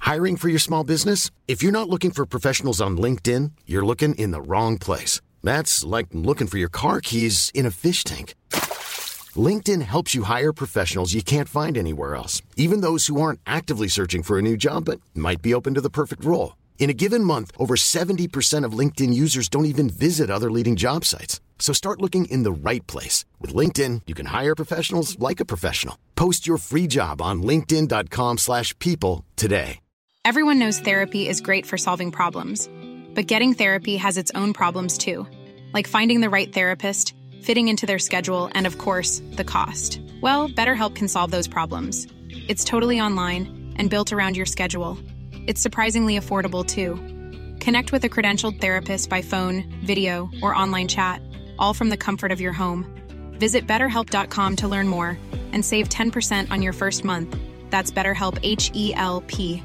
Hiring for your small business? If you're not looking for professionals on LinkedIn, you're looking in the wrong place. That's like looking for your car keys in a fish tank. LinkedIn helps you hire professionals you can't find anywhere else, even those who aren't actively searching for a new job but might be open to the perfect role. In a given month, over 70% of LinkedIn users don't even visit other leading job sites. So start looking in the right place. With LinkedIn, you can hire professionals like a professional. Post your free job on linkedin.com slash people today. Everyone knows therapy is great for solving problems, but getting therapy has its own problems too, like finding the right therapist, fitting into their schedule, and of course, the cost. Well, BetterHelp can solve those problems. It's totally online and built around your schedule. It's surprisingly affordable too. Connect with a credentialed therapist by phone, video, or online chat, all from the comfort of your home. Visit betterhelp.com to learn more and save 10% on your first month. That's BetterHelp H E L P.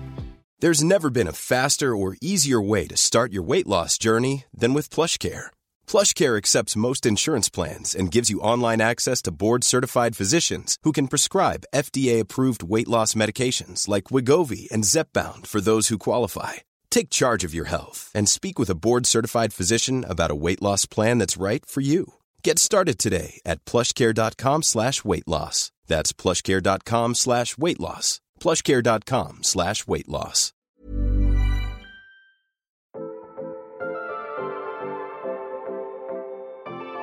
There's never been a faster or easier way to start your weight loss journey than with PlushCare. PlushCare accepts most insurance plans and gives you online access to board-certified physicians who can prescribe FDA-approved weight loss medications like Wegovy and Zepbound for those who qualify. Take charge of your health and speak with a board-certified physician about a weight loss plan that's right for you. Get started today at plushcare.com slash weight loss. That's plushcare.com slash weight loss. plushcare.com slash weight loss.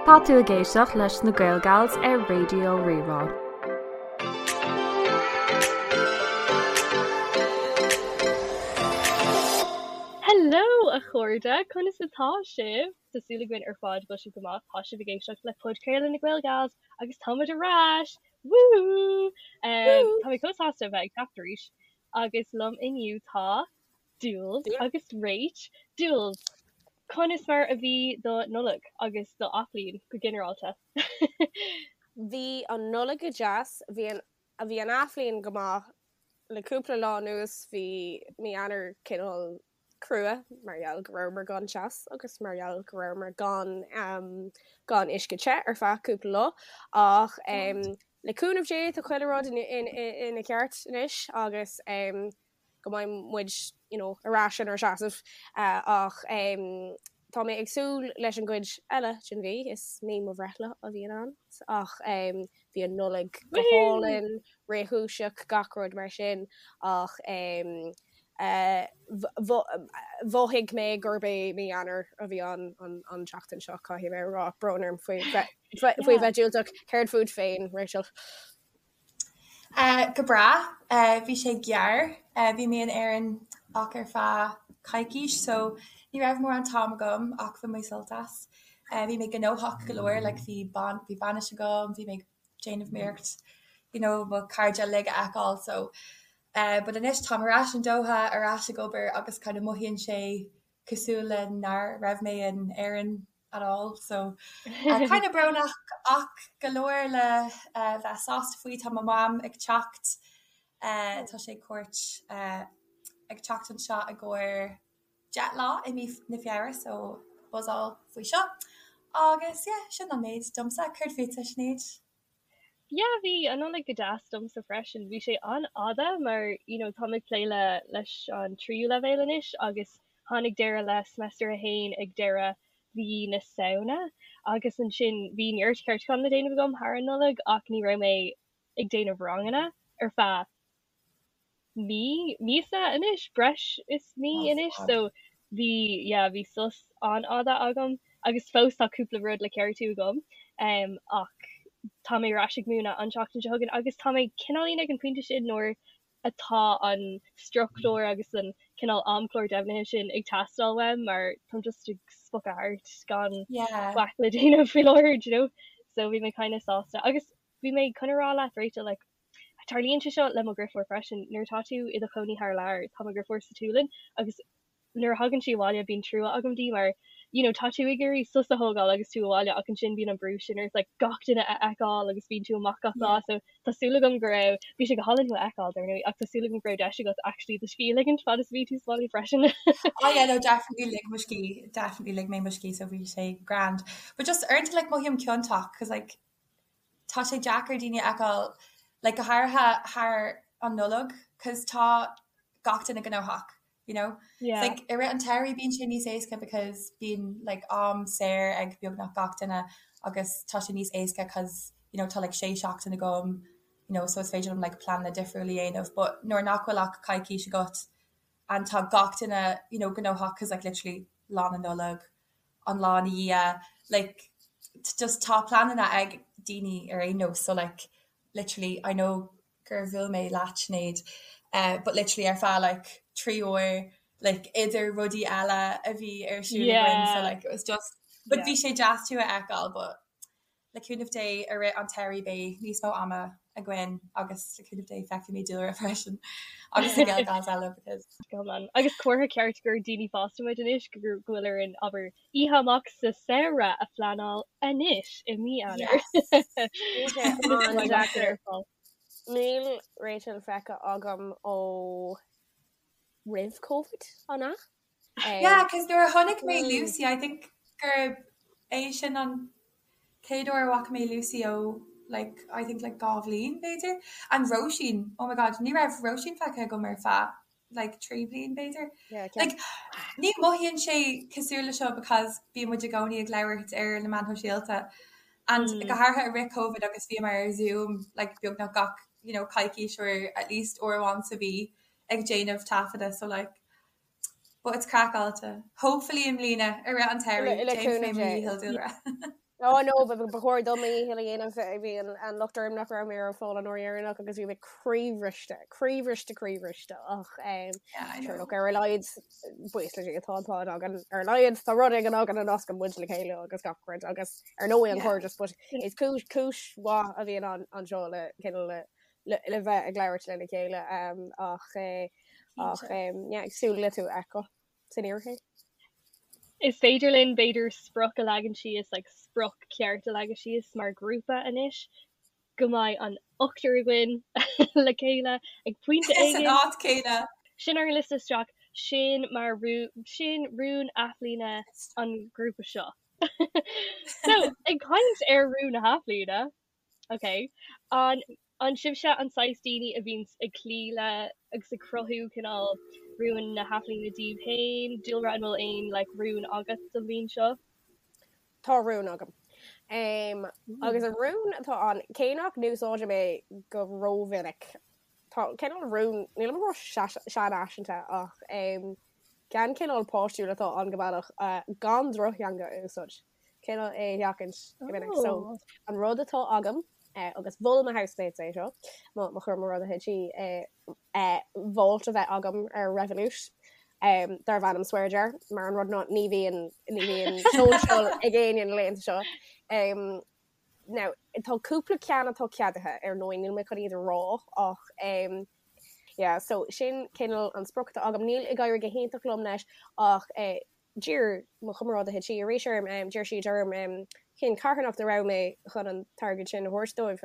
Tá tú ag éisteacht leis na Gael Gals ar Raidió Rí-Rá. Hello a chairde, conas atá sibh? Tá súil againn ar fad go bhfuil sibh go maith. Tá sibh ag éisteacht le podchraoladh na Gael Gals agus táimid ar ais! Woo! Tá mé chomh sásta a bheith ag teacht arís agus liom inniu tá Jules agus Rach. Jules, conas mar a bhí do Nollaig agus do athbhliain go ginearálta? Bhí an Nollaig go deas, bhí an bhí an athbhliain go maith. Le cúpla lá anuas bhí mí Eanáir cineál crua mar gheall go rabhamar gan teas agus mar gheall go rabhamar gan gan uisce te ar feadh cúpla lá ach le cúnamh Dé tá chuile rud ina cheart anois agus go mbeidh muid you know ar ais inár seasamh ach tá mé ag súil leis an gcuid eile den mhí, is mí mo bhreithlá a bhíonn ann ach bhí an Nollaig go hálainn, réchúiseach, gach rud mar sin ach mhothaigh mé gurb é mí Eanáir a bhí ann an tseachtain seo, caithfidh mé a rá, brón orm faoi bheith diúltach. Céard fút féin, Rachel? Go breá. Bhí sé gearr. Bhí mé in Éirinn ach ar feadh coicís so ní raibh mórán t-am agam ach bhain mé sult as. Bhí mé gnóthach go leor like bhí ban bhí bainis agam, bhí mé ag déanamh iarracht you know mo chairde uilig a fheiceáil so but anois táim ar ais in Doha, ar ais ag obair agus kind of mothaíonn sé cosúil le nár raibh mé in Éirinn at all so kind of brónach ach go leor le bheith sásta faoi. Tá mo mham ag teacht, tá sé cuairt ag teacht anseo i gcomhair 10 lá i mí na Feabhra so buzzáil faoi seo. Agus yeah, sin an méid domsa. Céard fútsa, Sinéad? Yeah, bhí an Nollaig go deas domsa freisin. Bhí sé an-fhada mar you know táim ag plé le leis an tríú leibhéal anois agus tháinig deireadh le semester a haon ag deireadh mhí na Samhna agus ansin bhí neart ceartúchán le déanamh agam thar an Nollaig ach ní raibh mé ag déanamh ranganna ar feadh mí, míosa anois, breis is mí anois, so bhí, yeah, bhí sos an-fhada agam agus fós tá cúpla rud le ceartú agam um, ach tá mé ar ais ag múineadh an tseachtain seo chugainn agus tá mé cineáilín ag an pointe sin nuair atá an struchtúr agus an cineál amchlár deimhnithe sin ag teastáil uaim mar táim just ag spochadh thart gan Yeah. faic le déanamh faoi láthair, do you know? So bhí mé kind of sásta agus bhí mé chun a rá leat Rachel like Tarlaíonn sé seo le mo dheirfiúr freisin, nuair atá tú i do chónaí thar lear, tá mo dheirfiúr sa tSualainn agus nuair a thagann sí abhaile bíonn trua agam di mar you know tá tú ag iarraidh sos a thógáil agus tú abhaile ach ansin bíonn an brú sin ort like gach duine a fheiceáil agus bíonn tú amach gach lá so tá súil agam go raibh, bhí sé go hálainn thú a fheiceáil dar ndóigh ach tá súil agam go raibh deis agat actually do scíth a ligint fad is a bhí tú sa bhaile freisin. Oh yeah no definitely lig mo scíth, definitely lig mé mo scíth so bhí sé grand. But just uaireanta like mothaím ciontach cause like tá sé deacair daoine a fheiceáil like go háirithe thar an Nollaig cause tá gach duine gnóthach, you know? Yeah. Like i rith an tsamhraidh bíonn sé níos éasca because bíonn like am saor ag beagnach gach duine agus tá sé níos éasca cause you know tá like sé seachtain agam you know so is féidir liom like pleananna difriúla a dhéanamh but nuair nach bhfuil ach coicís agat and tá gach duine you know gnóthach cause like literally lá na Nollag an lá ina dhiaidh like just tá pleananna ag daoine ar aon nós so like literally I know gur bhuail mé leat Sinéad eh but literally ar feadh like 3 uair like idir rudaí eile a bhí ar siúl againn so Yeah. like it was just but Yeah. bhí sé deas tú a fheiceáil but Le cúnamh Dé, i rith an tsamhraidh beidh níos mó ama againn agus le cúnamh Dé feicfidh mé Dúlra freisin agus na Gael Gals eile because. Go hiomlán. Agus comhartha ceart gur daoine fásta muid anois go bhfuil orainn, abair, oíche amach sa samhradh a phleanáil anois i mí Eanáir. Yes! Bhí sé an-deacair. Níl Rachel feicthe agam ó roimh Covid, an ea? Yeah, cos nuair a chonaic mé Lucy, I think gurb é sin an chéad uair a bhfaca mé Lucy ó like, I think like 2 bhliain b'fhéidir. And Róisín, oh my god, ní raibh Róisín feicthe agam ar feadh like 3 bliain b'fhéidir. Yeah, Like, ní mothaíonn sé cosúil le seo because bíonn muid i gcónaí ag labhairt ar na meáin shóisialta and go háirithe i rith Covid agus bhíomar ar Zoom like beagnach gach you know coicís or at least uair amháin sa mhí ag déanamh taifeadadh so like But it's craiceáilte. Hopefully i mbliana, i rith an tsamhraidh, Le déanfaidh cúnamh mé mo Dé. dhícheall Dúlra. Oh no, ba ba chóir dom mo dhícheall a dhéanamh. Bhí an an locht orm nach raibh mé ar fáil an uair dheireanach agus bhí mé croíbhriste, croíbhriste, croíbhriste ach um, Yeah, I sure know. look, ar a laghad buíochas le Dia tá an pod againn ar a laghad tá rud éigin againn a nascann muid le chéile agus gach rud agus ar ndóigh an Yeah. cairdeas but is cúis cúis mhaith a bhíonn an anseo le cineál le le le bheith ag labhairt lena chéile um, ach eh, ach um, yeah, ag súil le tú a fheiceáil san fhíorshaol. Is féidir linn b'fhéidir sprioc a leagan síos, like sprioc ceart a leagan síos mar grúpa anois, go mbeidh an ochtar againn le chéile ag pointe San éigin. áit céanna. Sin ar an liosta isteach, sin mar rún, sin rún athbhliana an ghrúpa seo. So, ag caint ar rún na hathbhliana, Ok. An an sibhse an saghas daoine a bhíonns ag cloí le agus ag cruthú cineál rúin na hathbhliana daoibh féin? Dúlra, an bhfuil aon like rún agat don bhliain seo? Tá rún agam. Um, agus an rún atá ann, cé nach n-úsáidim é go rómhinic, tá cineál rún, nílim ag rá seanfhaiseanta ach um, ceann cineál páistiúil atá ann go bealach, uh, gan drochtheanga a úsáid. cineál é a sheachaint go minic. So an rud atá agam eh, agus mhol mo housemates é seo, mo mo chomrádaithe tí eh, eh, vault a bheith agam ar Revolut um, darb ainm Swear Jar, mar an rud ná ní bhíonn ní bhíonn social ag éinne na laethanta seo. Um, now, tá cúpla ceann atá ceadaithe ar ndóigh níl mé chun iad a rá ach um, yeah, so sin cineál an sprioc atá agam. Níl ag éirí go hiontach liom leis ach eh, D'iarr mo chomrádaithe tí arís orm, d'iarr siad orm cén carthanacht a raibh mé chun an t-airgead sin a thabhairt dóibh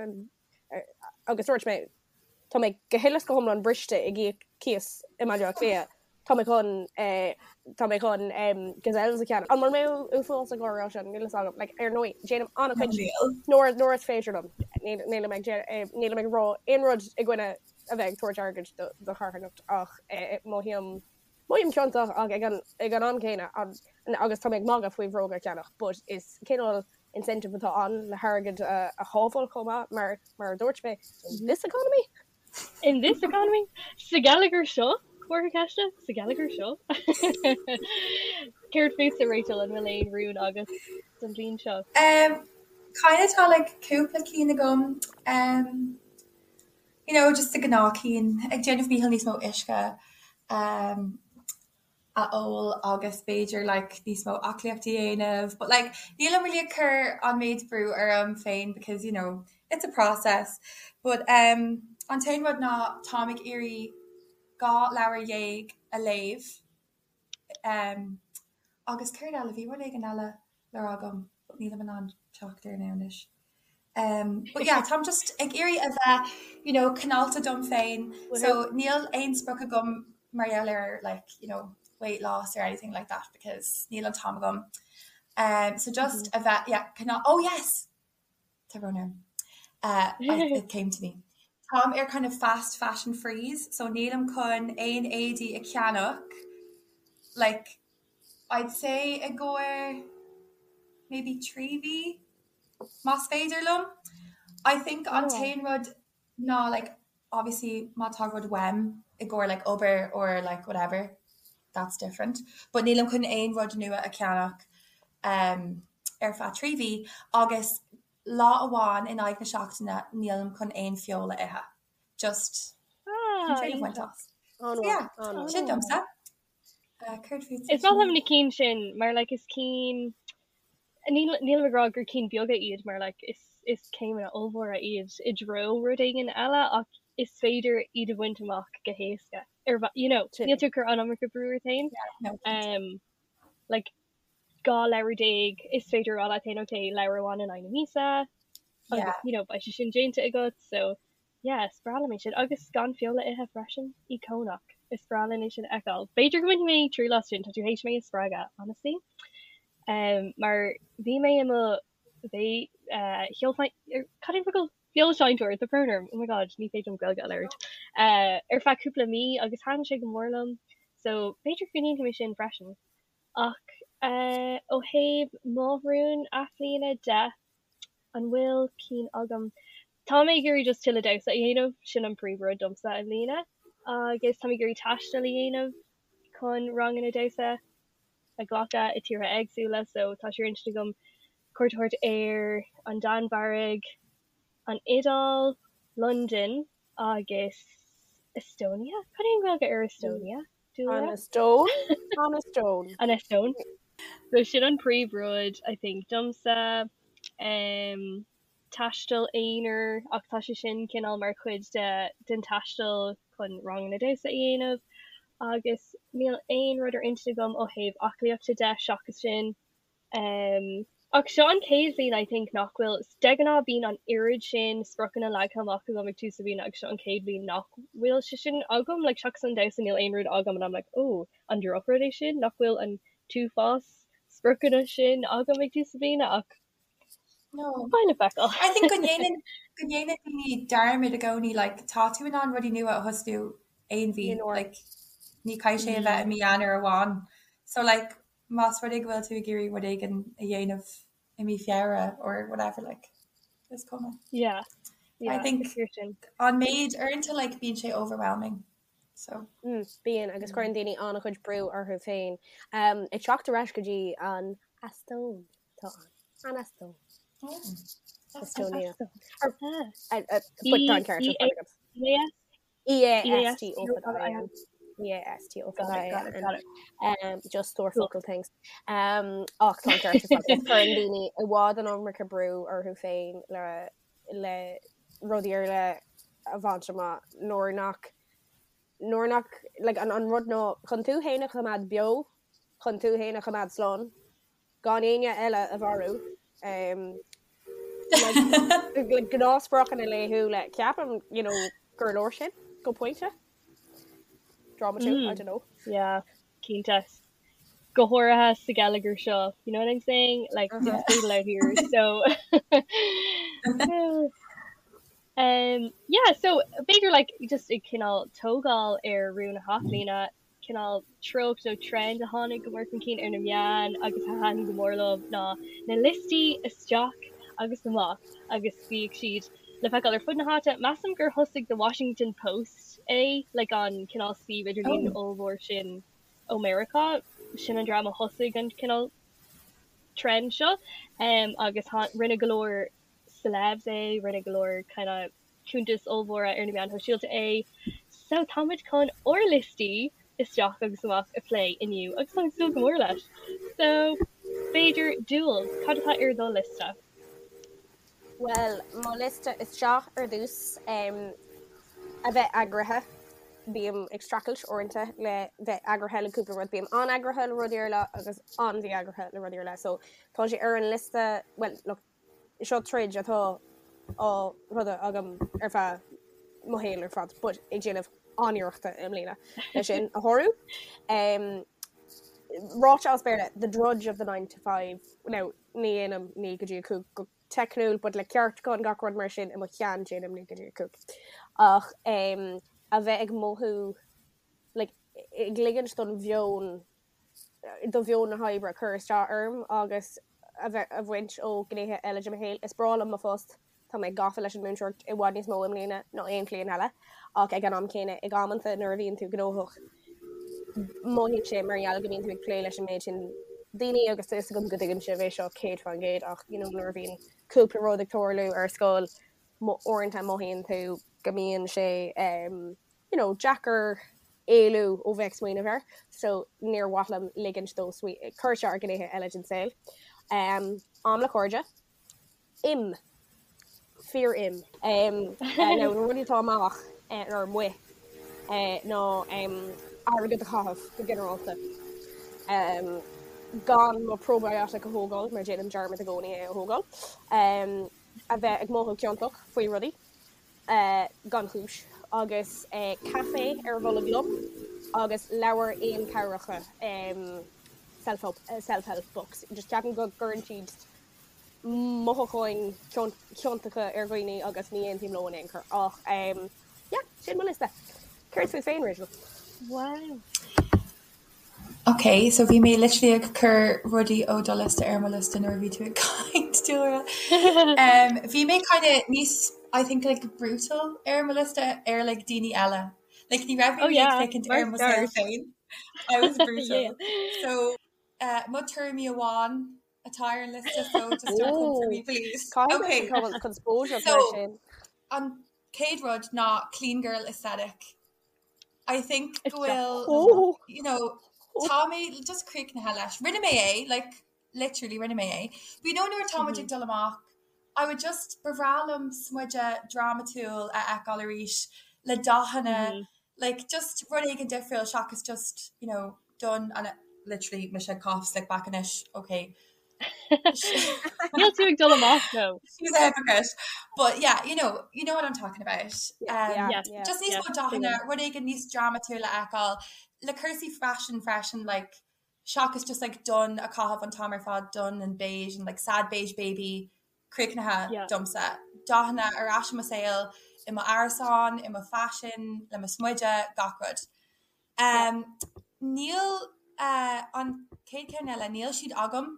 agus dúirt mé, tá mé go huile is go hiomlán briste ag íoc cíos i mBaile Átha Cliath, tá mé chun, tá mé chun Gazelles a cheannach. An bhfuil mé uafásach á rá sin? Níl a fhios agam. Like, ar ndóigh, déanaim an-chuid nuair, nuair is féidir liom. Nílim ag, nílim ag rá aon rud i gcoinne a bheith ag tabhairt airgid do charthanacht ach mothaím Mothaím ciontach ach ag an ag an am céanna agus tá mé ag magadh faoi bhróga a cheannach but is cineál incentive atá ann le hairgead a a shábháil chomh maith mar mar a dúirt mé in this economy. In this economy? Sa gheilleagar seo? Comhartha ceiste? Sa gheilleagar seo? Céard fútsa Rachel, an bhfuil aon rún agat don bhliain seo? Um, kind of tá like cúpla cinn agam. Um, you know, just the gnáth cinn, ag déanamh mícheall níos mó uisce um, a ól agus b'fhéidir like níos mó aclaíocht a dhéanamh, but like nílim really ag cur an méid brú orm féin because you know, it's a process. But um, an t-aon rud ná táim ag iarraidh 12 leabhar a léamh um, agus céard eile, bhí rud éigin eile le rá agam but nílim in ann teacht air now anois. Um, but yeah, táim just ag iarraidh a bheith, you know, cineálta dom féin, so níl aon sprioc agam mar gheall ar like, you know, weight loss or anything like that because níl an t-am agam. Um, so just a bheith, yeah, cineál, oh yes! Tá brón orm. Uh, I, it came to me. Táim ar kind of fast fashion freeze so nílim chun aon éadaí a cheannach like I'd say i gcomhair maybe 3 mhí más féidir liom. I think an t-aon rud ná like obviously má tá rud uaim i gcomhair like obair or like whatever that's different but nílim chun aon rud nua a cheannach um ar feadh 3 mhí agus lá amháin in aghaidh na seachtaine nílim chun aon feoil a ithe. Just chun triail a bhaint as. So yeah, sin domsa. Céard fútsa? Is maith liom na cinn sin mar like is cinn nílim ag rá gur cinn beaga iad mar like is is céimeanna ollmhóra iad i dtreo rud éigin eile ach is féidir iad a bhaint amach go héasca ar you know níl tú ag cur an iomarca brú ort féin. Um, like 12 leabhar is féidir a rá leat féin ok leabhar amháin in aghaidh na míosa agus you know beidh sé sin déanta agat so yeah is breá liom é sin agus gan feoil a ithe freisin íocónach is breá linn é sin a fheiceáil. B'fhéidir go mbainfidh mé triail as sin tá tú théis mé a spreagadh honestly um, mar bhí mé i mo bhé uh, cad é an focal feoilséantóir tá brón orm oh my god ní féidir liom Gaeilge a labhairt uh, ar feadh cúpla mí agus thaitin sé go mór liom so b'fhéidir go ndéanfaidh mé sin freisin. Ach ó thaobh mo rún athbhliana de, an bhfuil cinn agam? Tá mé ag iarraidh just tuilleadh damhsa a dhéanamh, sin an príomhrud domsa i mbliana. Agus tá mé ag iarraidh taisteal a dhéanamh chun ranganna damhsa a ghlacadh i tíortha éagsúla, so tá sé ar intinn agam cuairt a thabhairt ar an Danmhairg, an Iodáil, Londain agus Estonia? Cad é an Ghaeilge ar Estonia? An Eastóin? An Eastóin. An Eastóin. So sin an príomhrud I think domsa. Um, taisteal aonair ach tá sé sin cineál mar chuid de den taisteal chun ranganna damhsa a dhéanamh agus níl aon rud ar intinn agam ó thaobh aclaíochta de seachas sin. Um, ach seo an chéad bhliain I think nach bhfuil, de ghnáth bíonn an oiread sin spriocanna leagtha amach agam ag tús na bliana agus seo an chéad bhliain nach bhfuil sé sin agam, like seachas an damhsa níl aon rud agam and I'm like oh an drochrud é sin nach bhfuil an t-uafás spriocanna sin agam ag tús na bliana ach No. beidh le feiceáil. I think go ndéanann go ndéanann daoine dearmad i gcónaí like tá tú in ann rudaí nua a thosnú aon mhí like ní caithfidh sé a bheith i mí Eanáir amháin so like más rud é go bhfuil tú ag iarraidh rud éigin a dhéanamh i mí Feabhra or whatever like is cuma. Yeah. Yeah, I think an méid uaireanta like bíonn sé overwhelming. So. Mm, bíonn agus cuireann daoine an-chuid brú orthu féin. Um, ag teacht ar ais go dtí an Eastóin tá an an Eastóin. Oh. Estonia. But tá an ceart ar fad agat. Yeah. E-A-S-T-O fada I-N. E-A-S-T-O fada I-N. Um, just stór focal things. Um, ach tá an ceart ar fad. Cuireann daoine i bhfad an iomarca brú orthu féin le, le rudaí ar leith a bhaint amach nuair nach nuair nach like, an, an rud ná chun tú féin a choimeád beo, chun tú féin a choimeád slán, gan éinne eile a mharú. Like gnáthspriocanna laethúla ceapaim you know, gur leor sin go pointe. Drámatú, I don't know. Yeah, cinnte. Go háirithe sa gheilleagar seo, you know what I'm saying? Like it's brutal out here, so um, yeah, so b'fhéidir like just ag cineál tógáil ar rún na hathbhliana, cineál treocht nó trend a tháinig go mór chun cinn ar na meáin agus a thaitin go mór liom ná na liostaí isteach agus amach agus bhíodh siad le feiceáil ar fud na háite. Measaim gur thosaigh The Washington Post é, like an cineál suíomh idirlín ollmhór sin ó Meiriceá, sin an dream a thosaigh an cineál trend seo agus rinne go leor celebs é, rinne go leor kind of cuntais ollmhóra ar na meáin shóisialta é. So táimid chun ár liostaí isteach agus amach a phlé inniu agus táim ag súil go mór leis. So b'fhéidir Jules, cad atá ar do liosta? Bhuel, mo liosta isteach ar dtús, a bheith eagraithe. Bím ag streachailt uaireanta le bheith eagraithe le cúpla rud. Bím an-eagraithe le rudaí ar leith agus an-mhí-eagraithe le rudaí ar leith. So tá sé ar an liosta, bhuel, look, Seo troid atá á throid agam ar feadh mo shaoil ar fad, but ag déanamh an-iarrachta i mbliana le sin a shárú. Ráite as Béarla, the drudge of the 9 to 5, now ní dhéanaim 9 go dtí 5 go teicniúil, but le ceartúchán gach rud mar sin i mo cheann déanaim 9 go dtí 5. Ach a bheith ag mothú like ag ligint don mheon do mheon na hoibre cur isteach orm agus a bheith a bhaint ó ghnéithe eile de mo shaol. Is breá liom mo phost, tá mé gafa leis an múinteoireacht i bhfad níos mó i mbliana ná aon bhliain eile ach ag an am céanna ag amanta nuair a bhíonn tú gnóthach mothaíonn sé mar gheall go mbíonn tú ag plé leis an méid sin daoine agus tá fhios agam go dtuigeann sibh é seo 100% ach you know nuair a bhíonn cúpla rud ag tarlú ar scoil uaireanta mothaíonn tú go mbíonn sé um, you know, deacair éalú ó bheith ag smaoineamh air so níor mhaith liom ligint dó cur isteach ar ghnéithe eile den saol. Um, am le cairde. Im. Fíor im. Um, uh, nó na rudaí atá amach uh, ar amuigh uh, ná um, airgead a chaitheamh go ginearálta. Um, gan mo probiotic a thógáil mar déanaim dearmad i gcónaí é a thógáil. Um, a bheith ag mothú ciontach faoi rudaí uh, gan chúis agus uh, caife ar bholg liom agus leabhair fhéinchabhracha um, self-help, uh, self-help books. Just ceapaim go gcuireann siad mothúcháin chiontacha ar dhaoine agus ní aontaím leo in aon chor ach yeah, sin mo liosta. Céard fút féin, Rachel? Wow. Ok, so bhí mé literally ag cur rudaí ó do liosta ar mo liosta nuair a bhí tú ag caint, Dúlra. Um, bhí mé kind of níos, I think, like, brutal ar mo liosta ar like, daoine eile. Like, ní raibh mé Oh yeah, ag féachaint ar mo saol féin. I was brutal. Yeah. So, uh, mo tuairimí amháin atá ar an liosta so just don't come for me please. Okay. Conspóideach mar So sin. an chéad rud ná clean girl aesthetic. I think go bhfuil Oh. you know tá mé just críochnaithe leis. Rinne mé é, like literally rinne mé é. But you know nuair atá muid ag dul amach, I would just ba bhreá liom smideadh drámatúil a fheiceáil arís le dathanna like just rud éigin difriúil seachas just you know donn and literally mise ag caitheamh slick back anois okay Níl tú ag dul amach no. She's a hypocrite but yeah you know you know what I'm talking about Yeah, um, yeah, Yes. yeah. just níos Yes, mó dathanna tuigim. rud éigin níos drámatúil a fheiceáil le cúrsaí faisin freisin like seachas just like donn a chaitheamh an t-am ar fad donn and beige and like sad beige baby críochnaithe Yeah. domsa. Dathanna ar ais i mo saol, i mo árasán, i mo faisean, le mo smideadh, gach rud. Um, níl uh, an chéad ceann eile, níl siad agam,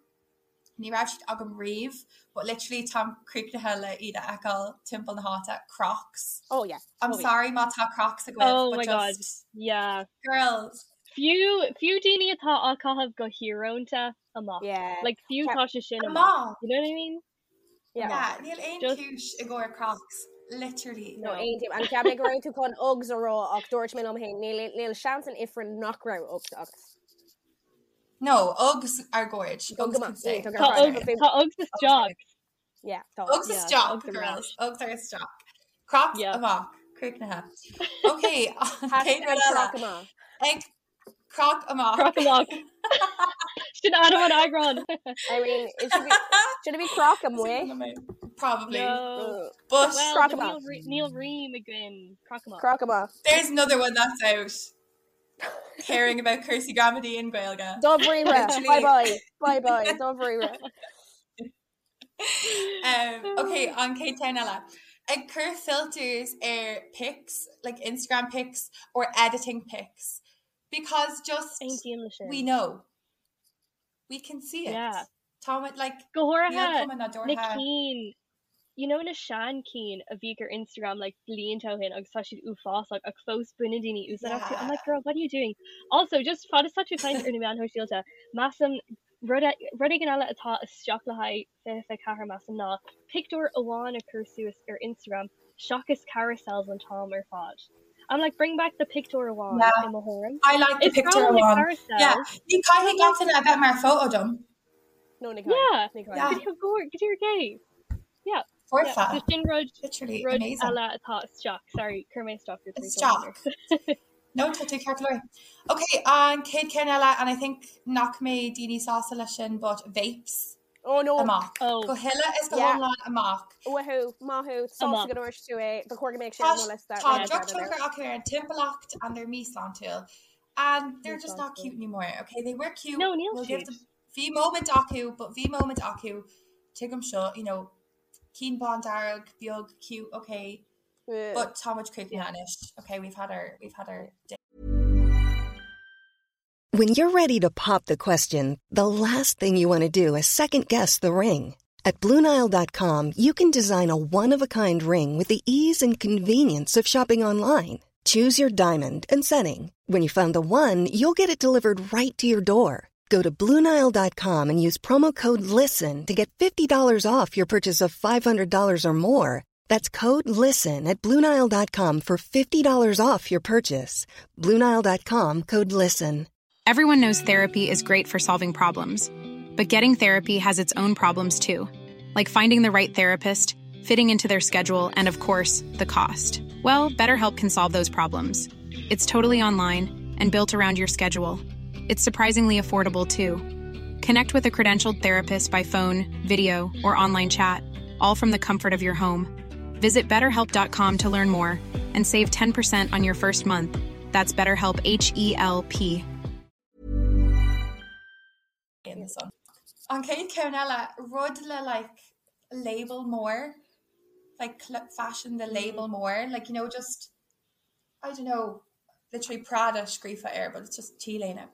ní raibh siad agam riamh, but literally táim críochnaithe le iad a fheiceáil timpeall na háite, Crocs. Oh yeah. I'm Oh yeah. sorry má tá Crocs agaibh, Oh but my god. just Yeah. girls. Fiú fiú daoine atá á caitheamh go híorónta amach. Yeah. Like fiú Ceap- tá sé sin amach. Amach! You know what I mean? Yeah. Yeah, níl aon Just chúis i gcomhair Crocs, literally. No, no. aontaím. And cheap mé go raibh tú chun Uggs a rá ach dúirt mé liom féin níl níl seans in ifreann nach raibh Uggs agat. No, Uggs are gorge. Go Uggs go can maith. stay. Tá Tá ar Uggs fad. tá Uggs isteach. Yeah, tá. Uggs Yeah, tá isteach, Uggs ar girls. ais. Uggs are isteach. Crocs Yeah. amach. Críochnaithe. Okay, an chéad Hashtag rud eile. croc amach. Ag croc amach. Croc amach. Sin ainm an eagrán. I mean, it should be should it be croc amuigh? Probably. No. But Well, Croc níl amach. rí- níl rím againn. Croc amach. Croc amach. there's another one that's out. Caring about cúrsaí gramadaí in Gaeilge. Dáiríre. Literally. Bye bye. Bye bye. Dáiríre. Um, okay, an chéad cheann eile. Ag cur filters ar pics, like Instagram pics or editing pics. Because just Aontaím le we sin. know. We can see it. Yeah. Tá like Go níl háirithe cuma na nádúrtha. cinn you know na sean cinn a bhí ar Instagram like blianta ó shin agus tá siad uafásach ach fós baineann daoine úsáid astu. I'm Yeah. like girl, what are you doing? Also, just fad is tá tú ag caint ar na meáin shóisialta, measaim rud e- rud éigin eile atá isteach le haghaidh 24 measaim ná pictiúr amháin a chur suas ar Instagram seachas carousels an t-am ar fad. I'm like bring back the pictiúr amháin Yeah. i mo thuairim. I like the Is breá picture liom na one. Yeah. carousels. Ní caithfidh gach duine a bheith mar photo dom. No, ní Yeah. caithfidh. Ní caithfidh. Yeah. Go go go dtí gay. Yeah. Yeah. So Foirfe. sin rud Literally rud amazing. eile atá isteach. Sorry, chuir mé isteach ar tar éis dul Isteach. No, tá tú ceart go leor. Okay, an chéad ceann eile, and I think nach mbeidh daoine sásta leis sin, but vapes Oh no. amach. Oh, Go huile is go Yeah. hiomlán amach. Wahoo, maith thú, sásta amach. go ndúirt tú é, ba chóir go mbeadh sé Tá ar mo liosta tá rinne Yeah. dearmad air. drochthionchar acu ar an timpeallacht and they're míshláintiúil. And they're just not Míshláintiúil. cute anymore. Okay, they were cute. No, níl We'll give siad. them bhí moment acu, but bhí moment acu. Tuigim seo, you know, cinn bándearg, beag, cute, okay. But tá muid críochnaithe anois. Okay, we've had our, we've had our day. When you're ready to pop the question, the last thing you want to do is second guess the ring. At Bluenile.com, you can design a one of a kind ring with the ease and convenience of shopping online. Choose your diamond and setting. When you find the one, you'll get it delivered right to your door. Go to Bluenile.com and use promo code LISTEN to get $50 off your purchase of $500 or more. That's code LISTEN at Bluenile.com for $50 off your purchase. Bluenile.com code LISTEN. Everyone knows therapy is great for solving problems, but getting therapy has its own problems too, like finding the right therapist, fitting into their schedule, and of course, the cost. Well, BetterHelp can solve those problems. It's totally online and built around your schedule. It's surprisingly affordable too. Connect with a credentialed therapist by phone, video, or online chat, all from the comfort of your home. Visit betterhelp.com to learn more and save 10% on your first month. That's BetterHelp H E L P. In the sun. An chéad cheann eile, rud le like label mór, like fashion the label mór, like you know just I don't know, literally Prada scríofa air, but it's just T-léine.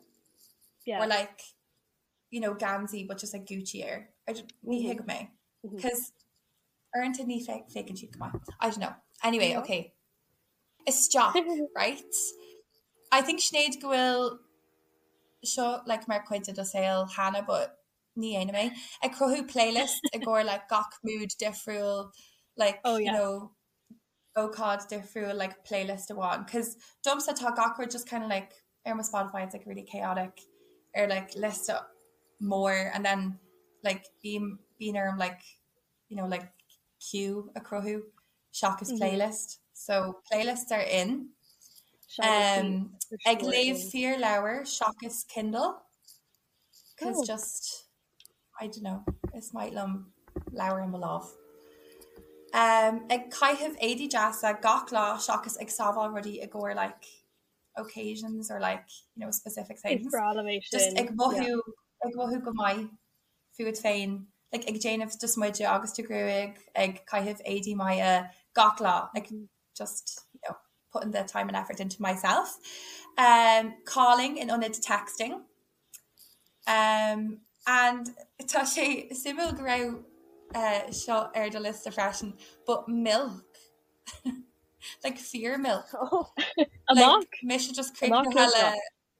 Yeah. Or like you know geansaí but just like Gucci air. I just, ní thuigim é. Cos uaireanta ní féachann siad go maith. I don't know. Anyway, okay. Isteach, right? I think Sinéad go bhfuil seo like mar chuid de do saol cheana but ní dhéanaim é. Ag cruthú playlist i gcomhair like gach mood difriúil like oh, yeah. you know ócáid difriúil like playlist amháin cos domsa tá gach rud just kind of like ar mo Spotify it's like really chaotic ar like liosta mór and then like bím bíonn orm like you know like queue a chruthú seachas mm -hmm. playlist so playlists are in um, ag léamh fíorleabhar seachas Kindle cos oh. just I don't know, is maith liom leabhar i mo lámh. Um, ag caitheamh éadaí deasa gach lá seachas ag sábháil rudaí i gcomhair like occasions or like you know specific things. Is breá liom é sin. Just ag mothú yeah. ag mothú go maith fút féin, like ag déanamh do smideadh agus do ghruaig, ag caitheamh éadaí maithe gach lá, like mm-hmm. just you know, putting the time and effort into myself. Um, calling in ionad texting. Um, and tá sé suimiúil go raibh uh, seo ar do liosta freisin, but milk. like fíor milk. Oh. Amach? Like, mise just críochnaithe le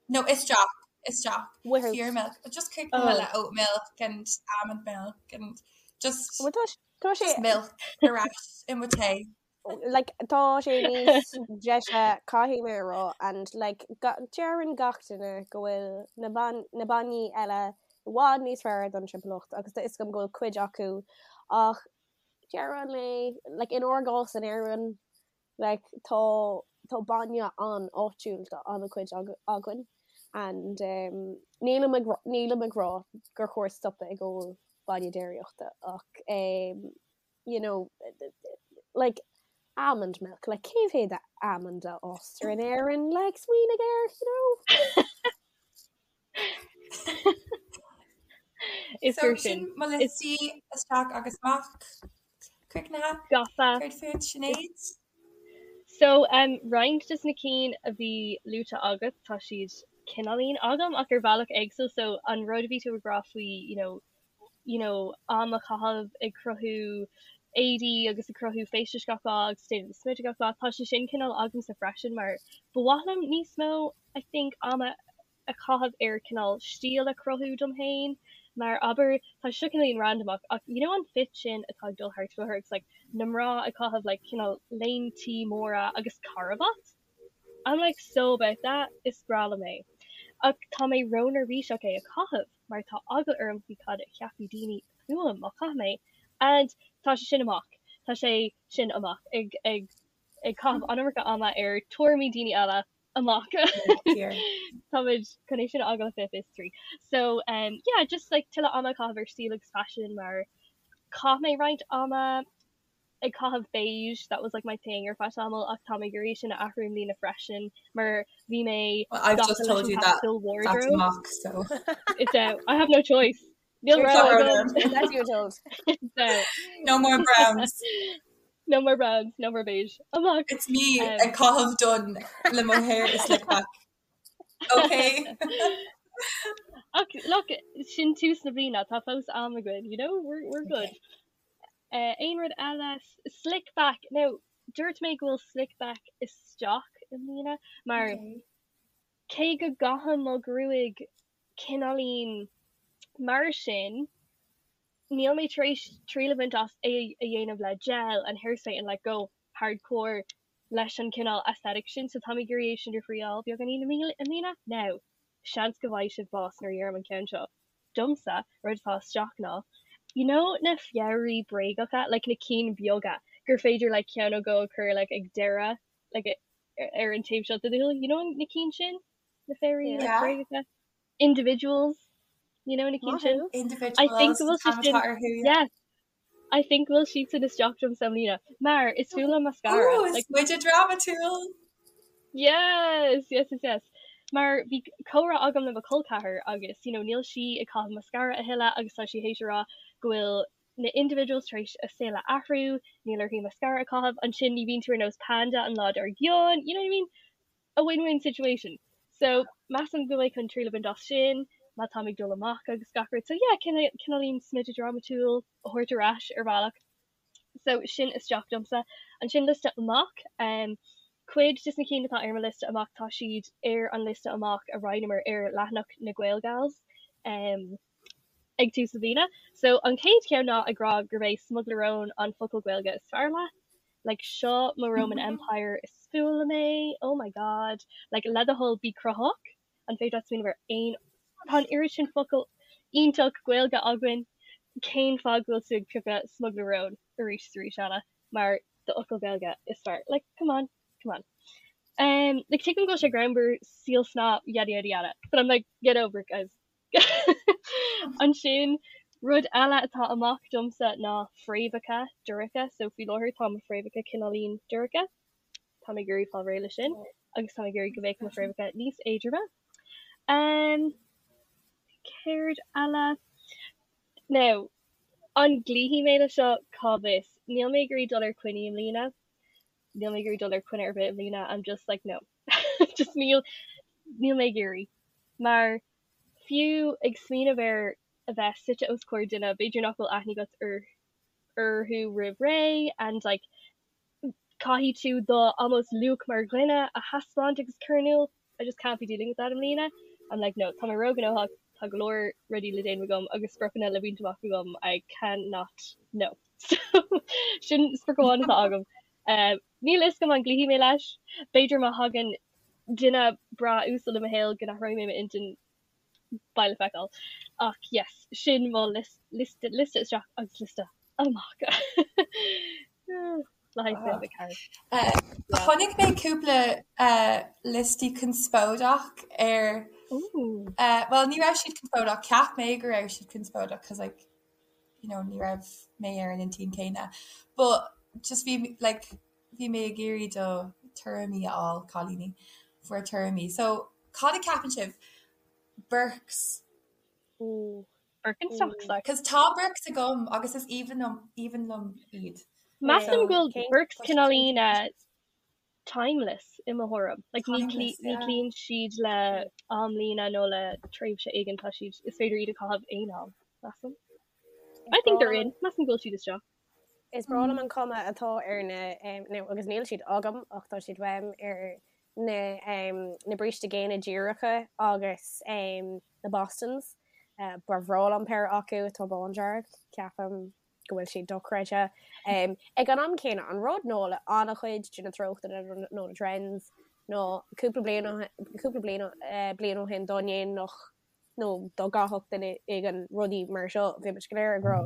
no isteach isteach fíor milk just críochnaithe oh. le oat milk and almond milk and just Well, tá tá sé just milk ar ais i mo tae. Like, tá sé níos deise caithfidh mé a rá and like deireann gach duine go bhfuil na ban na bainní eile i bhfad níos fearr don timpeallacht agus tá fhios agam go bhfuil cuid acu ach deireadh an lae like inár gcás in Éirinn like tá tá bainne an-áitiúil do an-chuid againn and um nílim ag nílim ag rá gur chóir stopadh ag ól bainne déiríochta ach um you know, like, almond milk, like, cé mhéad almond a fhástar in Éirinn, like, smaoinigh air, you know? Is So fíor sin sin. mo liostaí isteach agus amach. Críochnaithe. Gafa. Céard fút, Sinéad? So, um, roinnt de na cinn a bhí luaite agat, tá siad cineáilín agam ach ar bhealach éagsúil, so an rud a bhí tú ag rá faoi, you know, you know, am a chaitheamh ag cruthú éadaí agus ag cruthú feistis gach lá agus déanamh do smideadh gach lá, tá sé sin cineál agamsa freisin mar ba mhaith liom níos mó I think ama a chaitheamh ar cineál stíl a chruthú dom féin mar abair tá sé seo cineáilín randamach ach you know an fit sin atá ag dul thart faoi láthair agus like na mná ag caitheamh like cineál léintí móra agus carbhat? I'm like so about that, is breá liom é. Ach tá mé ró-neirbhíseach é a chaitheamh mar tá eagla orm faoi cad a cheapfaidh daoine fúm má chaithim é and tá sé sin amach, tá sé sin amach ag ag ag caitheamh an iomarca ama ar tuairimí daoine eile amach. Táimid chun é sin a fhágáil le 2023. So um yeah just like tuilleadh ama a chaitheamh ar stíl agus faisean mar chaith mé roinnt ama ag caitheamh beige, that was like my thing ar feadh tamaill ach tá mé ag iarraidh sin a athrú i mbliana freisin mar bhí mé Well, I've gafa just leis told an you that pastel that's wardrobe. amach, so. It's out. I have no choice. Níl You're rogha told. agam. That's you told. It's out. No more browns. No more browns, no more beige. Amach! It's me ag caitheamh donn le mo hair i slick back. Ok. Ach look, sin tús na bliana, tá fós am againn, you know, we're, we're good. Uh, aon rud eile, slick back, now, dúirt mé go bhfuil slick back isteach i mbliana, mar okay. cé go gcaithim mo ghruaig cineáilín mar sin, níl mé tar éis triail a bhaint as é a dhéanamh le gel and hairspray and like go hardcore leis an cineál aesthetic sin so táim ag iarraidh é sin a thriáil beagáinín i mbliana. Now, seans go bhfaighidh sibh bás nuair a dheirim an ceann seo. Domsa, rud atá isteach ná, you know na fabhraí bréagacha, like na cinn beaga gur féidir like ceann nó dhó a chur like ag deireadh like ar an taobh seo de do shúil, you know na cinn sin? Na fabhraí like bréagacha? Individuals, you know na cinn sin? Individuals, I think go bhfuil siad sin, yes, I think go bhfuil siad sin isteach domsa i mbliana, mar is fuath liom mascara. Ooh, is muide drámatúil! Yes, yes, yes, yes. Mar bhí comhrá agam le mo chol ceathar agus, you know, níl sí ag caitheamh mascara a thuilleadh agus tá sí théis a rá go bhfuil na individuals tar éis a saol a athrú, níl uirthi mascara a chaitheamh, ansin ní bhíonn tú ar nós panda an lá dár gcionn, you know what I mean? A win-win situation. So, measaim go mbeidh chun triail a bhaint as sin, má táim ag dul amach agus gach rud. So yeah, cineáilín smideadh drámatúil a thabhairt ar ais ar bhealach. So, sin isteach domsa. Ansin liosta amach. Um, cuid des na cinn atá ar mo liosta amach, tá siad ar an liosta amach a roinneamar ar leathanach na Gaelgals um, ag tús na bliana. So, an chéad cheann ná ag rá gurb é smugairle róin an focal Gaeilge is fearr leat. Like seo mo Roman Empire is fuath liom é, oh my god. Like le do thoil bí cruthaitheach, an féidir leat smaoineamh ar aon, tá an oiread sin focal iontach Gaeilge againn, cén fáth go bhfuil tú ag piocadh smugairle róin arís is arís eile mar do fhocal Gaeilge is fearr? Like come on, come on. Um, like tuigim go bhfuil sé greannmhar síol snáth yada yada yada, but I'm like get over it guys. Ansin, rud eile atá amach domsa ná fréamhacha dorcha, so faoi láthair tá mo fréamhacha cineáilín dorcha. Táim ag iarraidh fáil réidh leis sin agus táim ag iarraidh go mbeadh mo fréamhacha níos éadroime. Um, céard eile? Now, an gcloífidh mé le seo? Cá bhfios? Níl mé ag iarraidh dul ar coinní i mbliana. Níl mé ag iarraidh dul ar coinne ar bith i mbliana. I'm just like, no. Just níl, níl mé ag iarraidh. Mar fiú ag smaoineamh ar a bheith suite os comhair duine, b'fhéidir nach bhfuil aithne agat ar orthu roimh ré and like caithfidh tú do almost luach mar dhuine a thaispeáint agus cur in iúl. I just can't be dealing with that i mbliana. I'm like no, tá mé róghnóthach, tá go leor rudaí le déanamh agam agus spriocanna le baint amach agam, I cannot, no. So sin sprioc amháin atá agam. Níl a fhios agam an gcloífidh mé leis. B'fhéidir má thagann duine breá uasal i mo shaol go n-athróidh mé m'intinn. Beidh le feiceáil. Ach yes, sin mo liosta isteach agus liosta amach. Le haghaidh 24. Chonaic mé cúpla liostaí conspóideach ar, bhuel ní raibh siad conspóideach, cheap mé go raibh siad conspóideach cos like you know ní raibh mé ar an intinn céanna but just bhí like bhí mé ag iarraidh do tuairimí a fháil cailíní bhur tuairimí so cad a ceapann sibh Birks Ooh Birkenstocks like Cos tá Birks agam agus is aoibhinn liom aoibhinn liom iad. Measaim go bhfuil Birks cineáilín timeless i mo thuairim. Like ní ní cloíonn siad le amlíne nó le tréimhse éigin, tá siad, is féidir iad a chaitheamh aon am, measaim. I think they're in, measaim go bhfuil siad isteach. Is breá liom an cuma atá ar na, nó agus níl siad agam ach tá siad uaim, ar na na bríste géine díreacha agus na Bostons. Ba bhreá liom péire acu atá bándearg, ceapaim. go bhfuil siad dochreidte. Ag an am céanna, an rud ná le an-chuid de na treochtanna nó na trends ná cúpla bliain cúpla bliain bliain ó shin dá ndéanfadh nó dá gcaithfeadh duine éigin rudaí mar seo, bhí muid go léir ag rá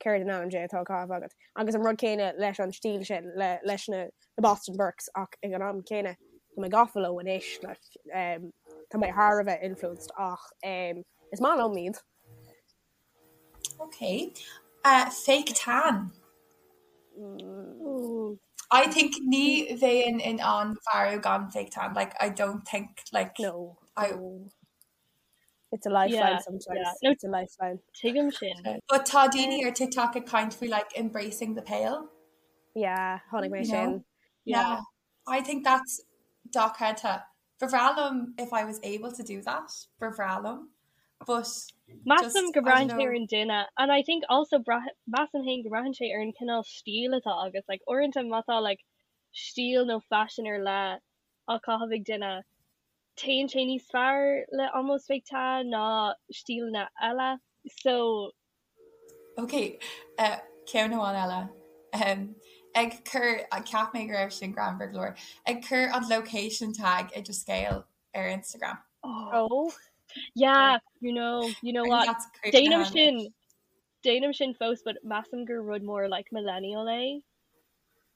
céard in ainm Dé atá á chaitheamh agat? Agus an rud céanna leis an stíl sin, le leis na Boston Birks ach ag an am céanna tá mé gafa leo anois, like tá mé thar a bheith influenced ach is maith liom iad. Ok. Uh, fake tan. Ooh. I think ní bheinn in ann maireachtáil gan fake tan. Like, I don't think, like... No. I, no. It's a lifeline Yeah, sometimes. yeah. No, It's a lifeline. tuigim sin. But tá daoine ar TikTok ag caint faoi like embracing the pale. Yeah, chonaic mé sin. Yeah. I think that's dochreidte. Ba bhreá liom if I was able to do that, ba bhreá liom. But Measaim go mbraitheann sé ar an duine and I think also measaim féin go mbraitheann sé ar an cineál stíl atá agat. Like uaireanta má tá like stíl nó faisean ar leith á caitheamh ag duine, téann sé níos fearr le almost fake tan ná stíleanna eile. So Ok, ceann amháin eile. Ag cur, cheap mé go raibh sin greannmhar go leor, ag cur an location tag i do scéal ar Instagram. Oh. Yeah, you know, you know what? Déanaim sin, déanaim sin fós, but measaim gur rud mór like millennial é.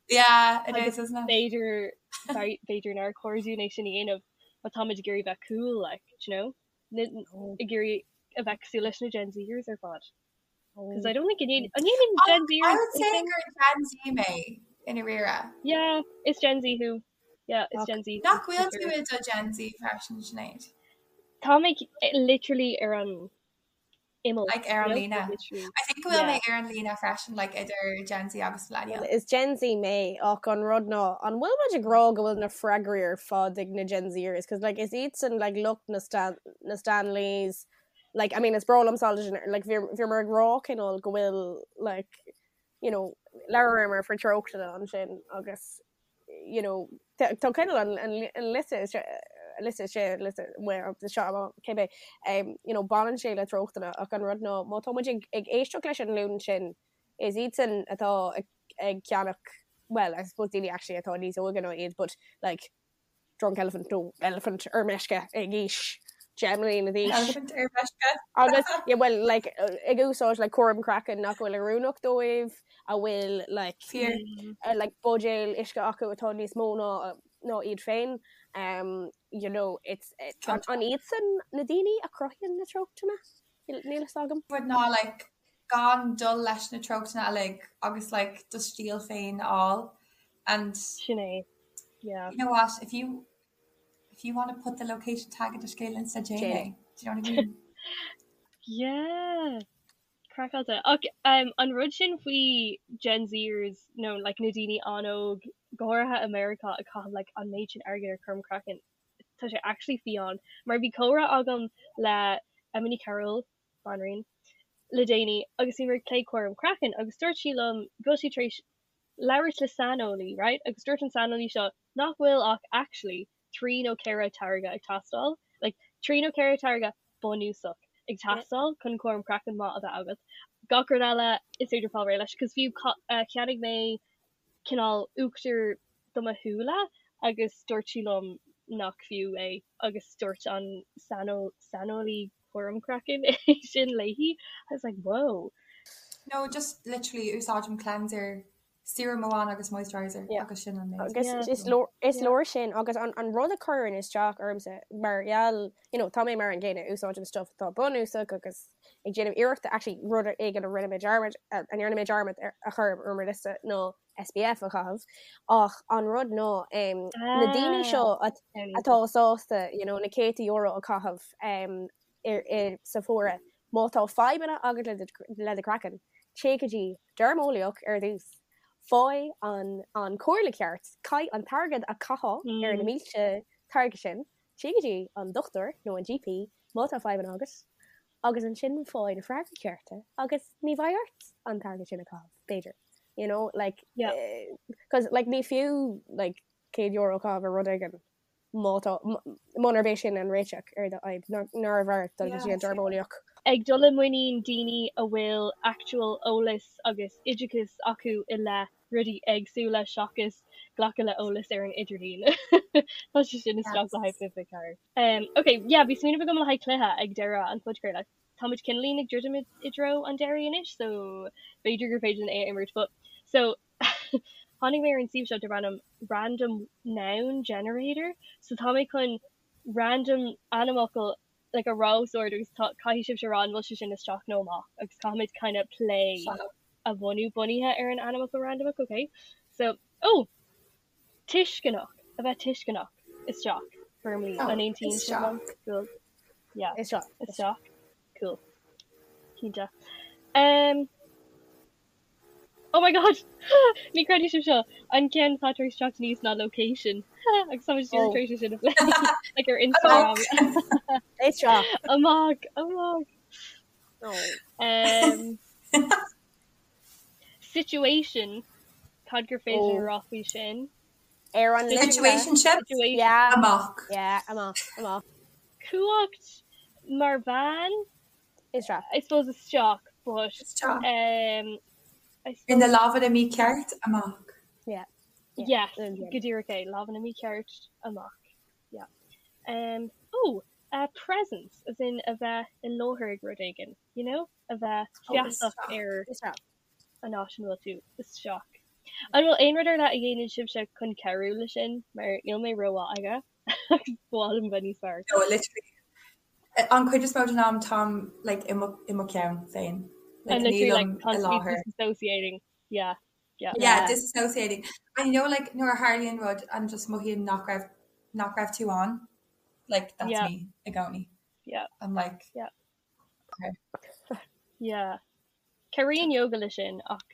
Yeah, it is, isn't it? B'fhéidir, b'fhéidir nár chóir dúinn é sin a dhéanamh má táimid ag iarraidh bheith cool, like, do you know? Ag iarraidh a bheith cosúil leis na Gen Zers ar fad. Because I don't think an ndéanann Gen Zers I would say gur Gen Z mé i ndáiríre. Yeah, is Gen Z thú. Yeah, is Gen Z. Nach bhfuil tú i do Gen Z freisin, Sinéad? Tá mé literally ar an imeall. Like ar an líne. I think go bhfuil mé ar an líne freisin like idir Gen Z agus millennial. Is Gen Z mé ach an rud ná an bhfuil muid ag rá go bhfuil na freagraí ar fad ag na Gen Zers cos like is iadsan like lucht na Stan na Stanleys like I mean is breá liom like bhíomar ag rá cineál go bhfuil like you know labhramar faoi treochtanna ansin agus you know, tá cineál an an liosta liosta sé liosta seo cibé you know, baineann sé le treochtanna ach an rud ná má tá muid ag ag éisteacht leis an nglúin sin is iadsan atá ag ag ceannach well I suppose daoine actually atá níos óige ná iad but like Drunk Elephant nó Elephant ar meisce ag aois 10 mbliana d'aois. Elephant ar meisce. Agus yeah, well like ag úsáid like cúram craicinn nach bhfuil oiriúnach dóibh, a bhfuil like Fíor. uh, like buidéal uisce acu atá níos mó ná ná iad féin. Um, you know, it's it, an, an iadsan na daoine a chruthaíonn na treochtanna? Níl níl fhios agam. Rud ná like gan dul leis na treochtanna uilig agus like do stíl féin a fháil and Sin é. Yeah. You know what, if you if you want to put the location tag i do scéal Insta déan é. Do you know what I mean? Yeah. Craiceáilte. Ach um, an rud sin faoi Gen Zers nó like, na daoine an-óg, go háirithe i Meiriceá ag caitheamh like, an méid sin airgid ar chúram craicinn, tá sé actually fiáin. Mar bhí comhrá agam le Emma Ní Chearúil, banríon, le déanaí agus bhíomar ag plé cúram craicinn agus dúirt sí liom go bhfuil sí tar éis labhairt le saineolaí, right, agus dúirt an saineolaí seo nach bhfuil ach actually 3 nó 4 táirge ag teastáil, like 3 nó 4 táirge bunúsach ag teastáil chun cúram craicinn maith a bheith agat. Gach rud eile is féidir fáil réidh leis, cos fiú cheannaigh mé cineál uachtar do mo shúile agus dúirt sí liom nach fiú é agus dúirt an saineolaí cúram craicinn é sin léi. I was like whoa. No, just literally úsáidim cleanser, serum amháin agus moisturizer agus sin an méid. Agus is leor is leor sin agus an an rud a chuireann isteach ormsa mar gheall you know tá mé mar an gcéanna úsáidim stuff atá bunúsach agus ag déanamh iarrachta actually rud éigin a rinne mé dearmad a ndearna mé dearmad a chur ar mo liosta ná SPF a chaitheamh ach an rud ná na daoine seo atá sásta you know na céadta euro a chaitheamh ar sa bhfómhar má tá fadhbanna agat le do chraiceann téigh go dtí deirmeolaíoch ar dtús faigh an an comhairle ceart caith an t-airgead a chaithfeá ar na mílte táirge sin téigh go dtí an dochtúir nó an GP má tá fadhbanna agat agus ansin faigh na freagraí cearta agus ní bheidh ort an t-airgead sin a chaitheamh, b'fhéidir. You know, like, yeah. Cos, like, ní fiú, like, €100 a chaitheamh ar rud éigin má tá, munarb é sin an réiteach ar do fhadhb, nárbh fhearr dul go dtí an deirmeolaíoch. Ag dul i muinín daoine a bhfuil actual eolas agus oideachas acu i leith rudaí éagsúla seachas glacadh le eolas ar an idirlíon. Tá sé sin isteach le haghaidh 24. Um, ok, yeah, bhí smaoineamh agam le haghaidh cluiche ag deireadh an phodchraoladh. Táimid cineáilín ag druidim i dtreo an deiridh anois, so b'fhéidir gur féidir linn é a imirt, but so tháinig mé ar an suíomh seo darb ainm Random Noun Generator, so tá mé chun random ainmfhocal like a rá os ard agus tá caithfidh sibhse a rá an bhfuil sé sin isteach nó amach agus caithfimid kind of plé a bhunú bunaithe ar an ainmfhocal randamach, ok? So, oh! Tuisceanach, a bheith tuisceanach, isteach, firmly, an aontaíonn sibh liom? Cool. Yeah. Isteach. Isteach. Cool. Cinnte. Um, Oh my god! Ní chreidfidh sibh seo! An ceann atá tar éis teacht aníos ná location. Agus tá muid díreach tar éis é sin a phlé. Like ar Instagram. Isteach. Amach! Amach! Um, situation. Cad gur féidir a rá faoi sin? Ar an Situationship? Situation. Yeah. Amach. Yeah, amach, amach. Cumhacht mar bhean? Isteach. I suppose isteach, but Isteach. um, I In na suppose lámhanna mícheart, amach. Yeah. yes, Yeah. go díreach é, lámhanna mícheart amach. Yeah. Um, oh, uh, presence, as in a bheith i láthair ag rud éigin, you know? A bheith Oh, feasach isteach. ar Isteach. an áit ina bhfuil tú, isteach. An bhfuil aon rud ar leith a dhéanann sibhse chun cabhrú leis sin, mar níl mé rómhaith aige agus ba mhaith liom bheith níos fearr. No, literally. An chuid is mó den am táim like i mo i mo cheann féin. Like And literally like nílim i constantly láthair. disassociating. Yeah, yeah. Yeah, disassociating. And you know like nuair a tharlaíonn rud and just mothaíonn nach raibh nach raibh tú ann, like that's Yeah. me i gcónaí. Yeah. I'm like Yeah. okay. Yeah. Cabhraíonn yoga leis sin ach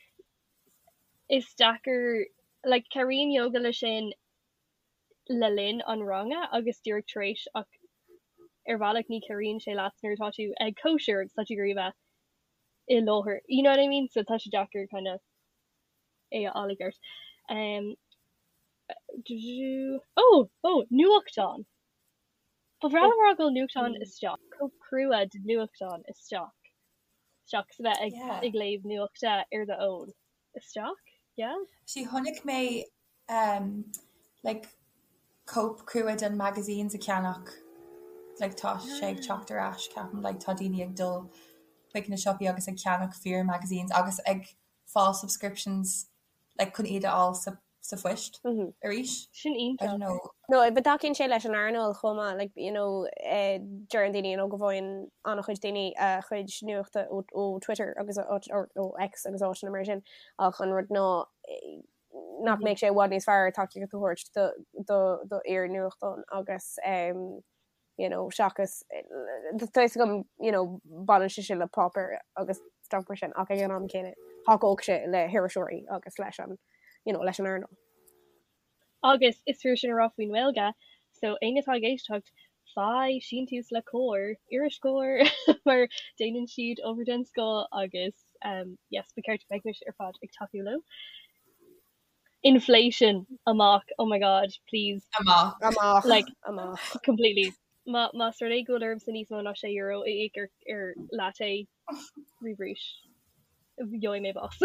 is deacair like cabhraíonn yoga leis sin le linn an ranga agus díreach tar éis ach ar bhealach ní chabhraíonn sé leat nuair atá tú ag cóisir agus tá tú ag iarraidh a bheith i láthair. You know what I mean? So tá sé deacair kind of é a fháil i gceart. Um, oh, oh, nuachtán! Ba bhreá liom a rá go bhfuil nuachtán isteach, cóip crua de nuachtán isteach, seachas a bheith ag Yeah. ag léamh nuachta ar do fhón. Isteach? Yeah? Actually chonaic mé um, like cóip crua den magazines a cheannach like tá sé ag teacht ar ais ceapaim like tá daoine ag dul chuig na siopaí agus ag ceannach fíor magazines agus ag fáil subscriptions like chun iad a fháil sa sa phoist arís. Sin I iontach. don't know. No, but tacaíonn sé leis an earnáil chomh maith, like, you know, eh, deireann daoine, you know, go bhfaigheann an-chuid daoine a chuid nuachta ó, ó Twitter agus ó, or ó X agus áiteanna mar sin, ach an rud ná eh, nach mbeadh sé i bhfad níos fearr tacaíocht a thabhairt do, do, do fhíor-nuachtán agus, em, you know, seachas, tá fhios agam, you know, baineann sé sin le páipéar agus stuff mar sin, ach ag an am céanna, thacódh sé le hiriseoirí agus leis an, you know, leis an earnáil. Agus is fíor sin a rá faoin nGaeilge, so éinne atá ag éisteacht, faigh síntiús le Comhar, iris Comhar, mar déanann siad obair den scoth agus um, yes, ba cheart go mbeimis ar fad ag tacú leo. Inflation amach oh my god please. Amach. Amach. Like Amach. completely. Má más rud é go bhfuil ormsa níos mó ná 6 euro a íoc ar ar latte roimh arís gheobhaidh mé bás.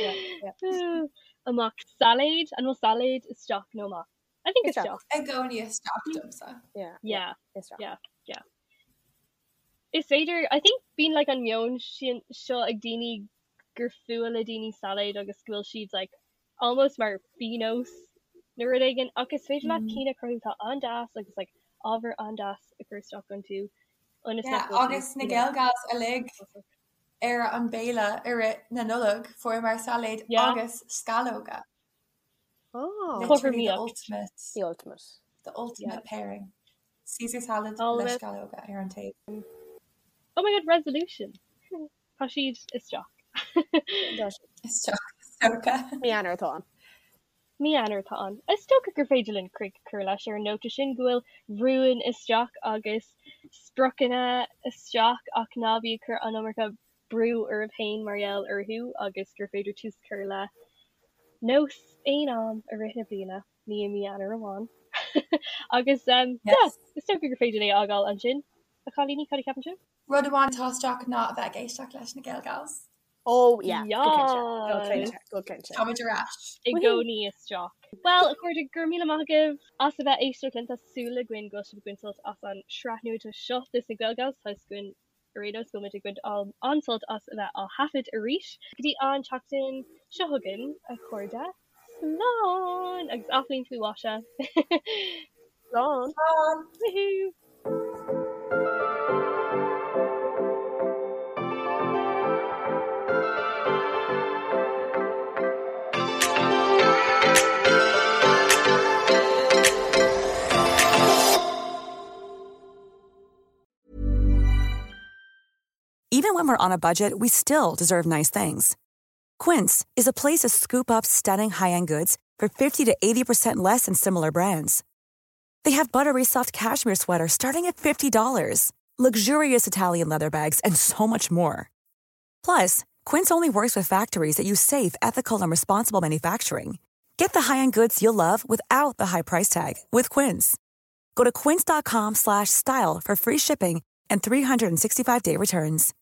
Yeah, yeah. Amach. Sailéad, an bhfuil sailéad isteach nó amach? I think Isteach. isteach. I gcónaí isteach domsa. Yeah, Yeah, isteach. yeah, yeah. Is féidir, I think bíonn like an meon sin seo ag daoine gur fuath le daoine sailéid agus go bhfuil siad like almost mar phíonós nó rud éigin ach is féidir leat cinn a chruthú atá an-deas agus like ábhar an-deas a chur isteach iontu ionas Yeah, nach bhfuil agus siad na you know Gaelgals uilig ar an béile i rith na Nollag fuaireamar sailéad Yeah. agus sceallóga. Oh. Literally the Cothromaíocht. ultimate. The ultimate. The ultimate Yeah. pairing. Caesar salad All le of it. sceallóga ar an taobh. Oh my god, resolution. Tá siad isteach. Isteach, is dócha. Mí Eanáir atá ann. Mí Eanáir atá ann. Is dócha gur féidir linn críoch a chur leis ar an nóta sin go bhfuil rúin isteach agus spriocanna isteach ach ná bí ag cur an iomarca brú oraibh féin mar gheall orthu agus gur féidir tús a chur le nós aon am i rith na bliana, ní i mí Eanáir amháin. Agus yeah, Yes. is dócha gur féidir é a fhágáil ansin. A chailíní, cad a cheapann sibh? Rud amháin atá isteach ná a bheith ag éisteacht leis na Gaelgals. Oh yeah, go cinnte, go Yes! cinnte, go cinnte. Táimid ar ais. I gcónaí isteach. Bhuel, a chairde, go raibh míle maith agaibh as a bheith ag éisteacht linn. Tá súil againn go bhfuil sibh ag baint sult as an sraith nua seo de na Gaelgals. Tá fhios againn ar aon nós go bhfuil muid ag baint an-sult as a bheith á thaifead arís. Go dtí an tseachtain seo chugainn, a chairde, slán! Agus athbhliain faoi mhaise. Slán! Slán! Woohoo! Even when we're on a budget, we still deserve nice things. Quince is a place to scoop up stunning high-end goods for 50 to 80% less than similar brands. They have buttery soft cashmere sweaters starting at $50, luxurious Italian leather bags, and so much more. Plus, Quince only works with factories that use safe, ethical, and responsible manufacturing. Get the high-end goods you'll love without the high price tag with Quince. Go to quince.com/style for free shipping and 365-day returns.